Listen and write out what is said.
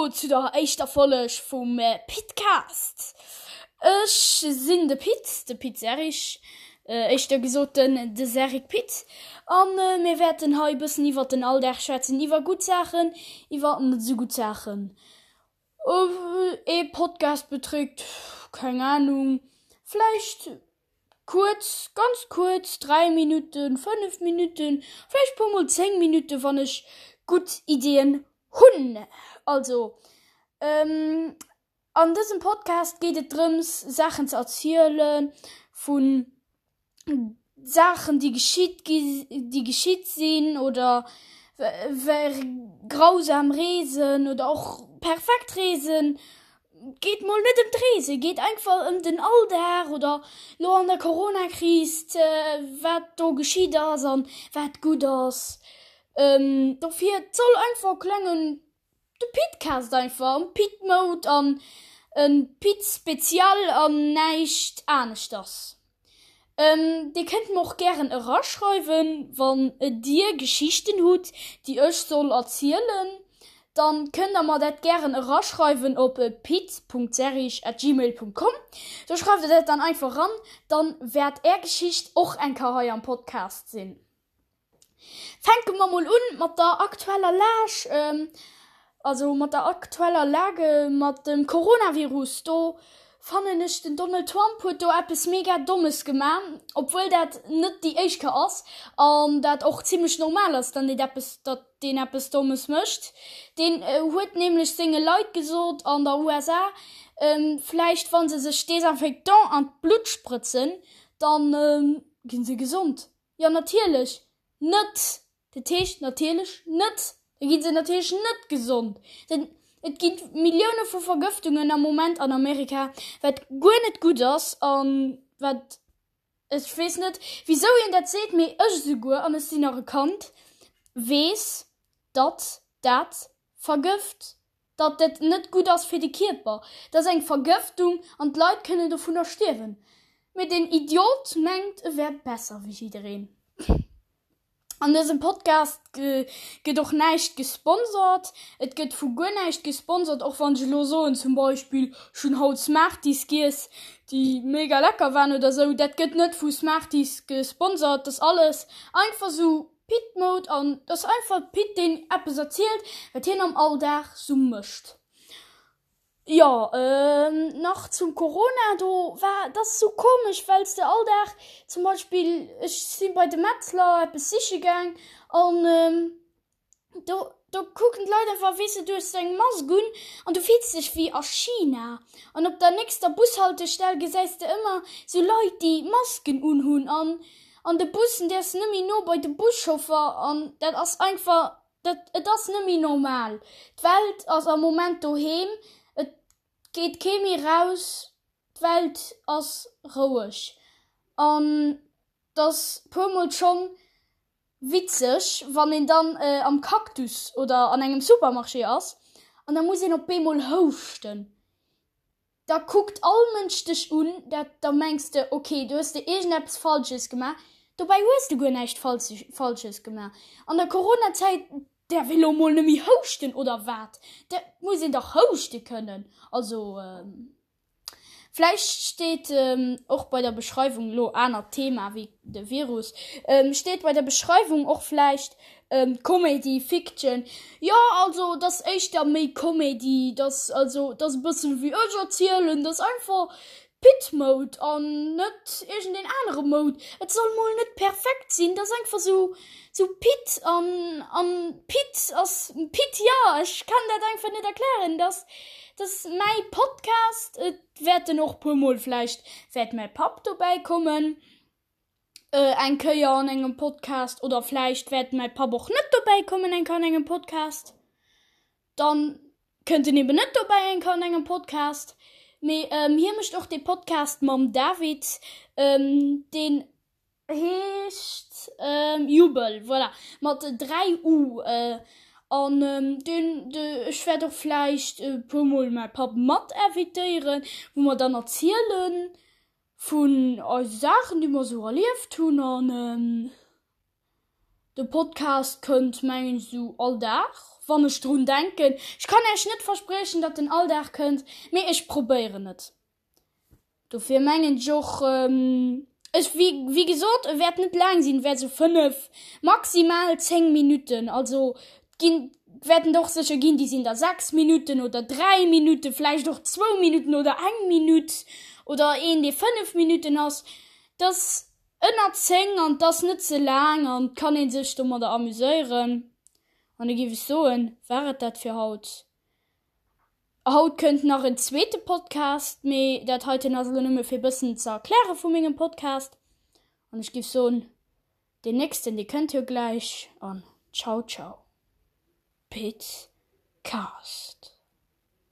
Hallo zu der éischter Folleg vum Pitcast. Ech sinn de Pit, de Pit Serrig, éischter gesot den de Serrig Pit, a mir wäerten hei e bëssen iwwert den Alldag schwätzen, iwwer gutt Saachen, iwwer net esou gutt Saachen. Ee Podcast beträgt, keng Ahnung, vläicht Kuerz, ganz kuerz, 3 Minutten, 5 Minutten, vläicht puer mol 10 Minutten, wann ech gutt Iddien hunn. Also, an dësem Podcast geet et drëms, Saachen ze erziele vu Saachen, déi geschitt gi, déi geschitt sinn oder grausam Reesen oder och perfekt Reesen. Geet mol net ëm d'Reese, geet einfach ëm den Alldag oder lo an der Coronakris wat do geschitt ass an wat gutt ass. Dofir et soll einfach e klengen de Pitcast einfach am Pit Mode an e Pit Spezial an näischt aneschters. Dir kënnt mer och gären eraschreiwen, wann dir Geschichten hutt, déi ech soll erzielen, dann kënnt der mer dat gären eraschreiwen op pit.serrig@gmail.com. Do schreift der dat dann einfach eran, dann wäert är Geschicht och eng Kéier hei am Podcast sinn. Fänke mer mol un mat der aktueller Lag, also mat der aktueller Lage mat dem Coronavirus. Do fannen ech den Donald Trump huet do eppes mega Dommes gemaach, obwuel dat net déi éischt Kéier ass an dat och zimmlech normal ass, dann deen eppes, datt deen eppes Dommes mécht. Deen huet nämlech senge Leit gesot an der USA, vläicht wa se sech Desinfectant an d'Blutt sprëtzen, dann gi se gesond. Jo natierlech net! Dat heescht natierlech net! Da gi se natierlech net gesond. Denn et gi Millioune vu Vergëftungen am Moment an Amerika, wat guer net gutt ass an wat, ech weess net wisou een dat seet, mee ech esouguer, an ech sinn nach e Kand, weess, datt dat vergëft. Datt dat net gutt ass fir de Kierper. Dat ass eng Vergëftung an d'Leit kënnen dovunner stierwen. Mee deen Idiot mengt e wär besser wéi jiddereen. An dësem Podcast gëtt och näischt gesponsert. Et gëtt vu guer näischt gesponsert, och wann ech elo soen zum Beispill ech hunn haut Smarties giess, déi mega lecker waren oder sou. Dat gëtt net vu Smarties gesponsert. Dat ass alles einfach sou Pit Mode an et ass einfach Pit deen eppes erzielt wat hien am Alldag sou mécht. Jo nach zum Corona do war et ass sou komesch wells de all Dag zum Beispill ech si bei de Metzler eppes siche gaang an do do kucken d'Leit einfach weess de du hues eng Mask un an du fills dech wéi a China an op der nächster Bushaltestell gesäis de ëmmer sou Leit déi Masken unhunn an An de Bussen däerfs net méi no bei de Buschauffer an dat ass einfach, dat, et ass net méi normal. D'Welt ass am Moment doheem, et geet kee méi raus, d'Welt ass roueg an et ass puermol schonn witzeg, wann een dann am Cactus oder an engem Supermarché ass an da muss een op eemol houschten. Da kuckt all Mënsch dech un, dat da mengs de, ok, do hues de iergendeppes Falsches gemaach. Dobäi hues de guer näischt Falsches gemaach. An der Coronazäit däerf ee lo mol net méi houschten, oder wat? Dat muss een dach houschte kënnen. Also vläicht steet och bei der Beschreiwung, lo anert Thema wéi de Virus, steet bei der Beschreiwung och vläicht Comedy, Fiction, jo also et ass éischter méi Comedy, et ass also et ass e bëssen wéi ech erzielen, et ass einfach Pit Mode an net iergendeen anere Mode. Et soll mol net perfekt sinn, et ass einfach sou sou Pit an an Pit ass Pit, jo ech kann dat einfach net erklären, et ass et ass mäi Podcast, et wäerten och puer mol vläicht wäert mäi Papp dobäi kommen. Eng Kéier an engem Podcast oder vläicht wäert mäi Papp och net dobäi kommen eng Kéier an engem Podcast. Dann kënnt en eben net dobäi eng Kéier an engem Podcast. Mee hie mécht och dee Podcast mam David, deen heescht Jubel, voilà, mat 3 U. An deen, ech wäert och vläicht e puermol mäi Papp mat invitéieren, wou mer dann erzielen, Vun eise Saachen déi mer sou erlieft hunn an de Podcast kënnt mengen ech sou all Dag. wann ech drun denken. Ech kann Äech net verspriechen, datt en all Dag kënnt, mee ech probéieren et. Dofir mengen ech och, ech, wéi, wéi gesot, e wäert net laang sinn, e wäert esou 5, maximal 10 Minutten, also et ginn, wäerten der och sécher ginn, déi sinn da 6 Minutten oder 3 Minutten, vläicht och zwou Minutten oder eng Minutt oder een, dee 5 Minutten ass. Dass Ënner 10 an 't ass net ze laang an 't kann een sech domadder amuséieren. An da giff ech soen, war et dat fir haut. Haut kënnt nach en zweete Podcast, mee dat heiten ass elo nëmme fir bëssen ze erkläre vu mengem Podcast. An ech giff soen, deen nächsten dee kënnt jo gläich an ciao ciao. Pit Cast.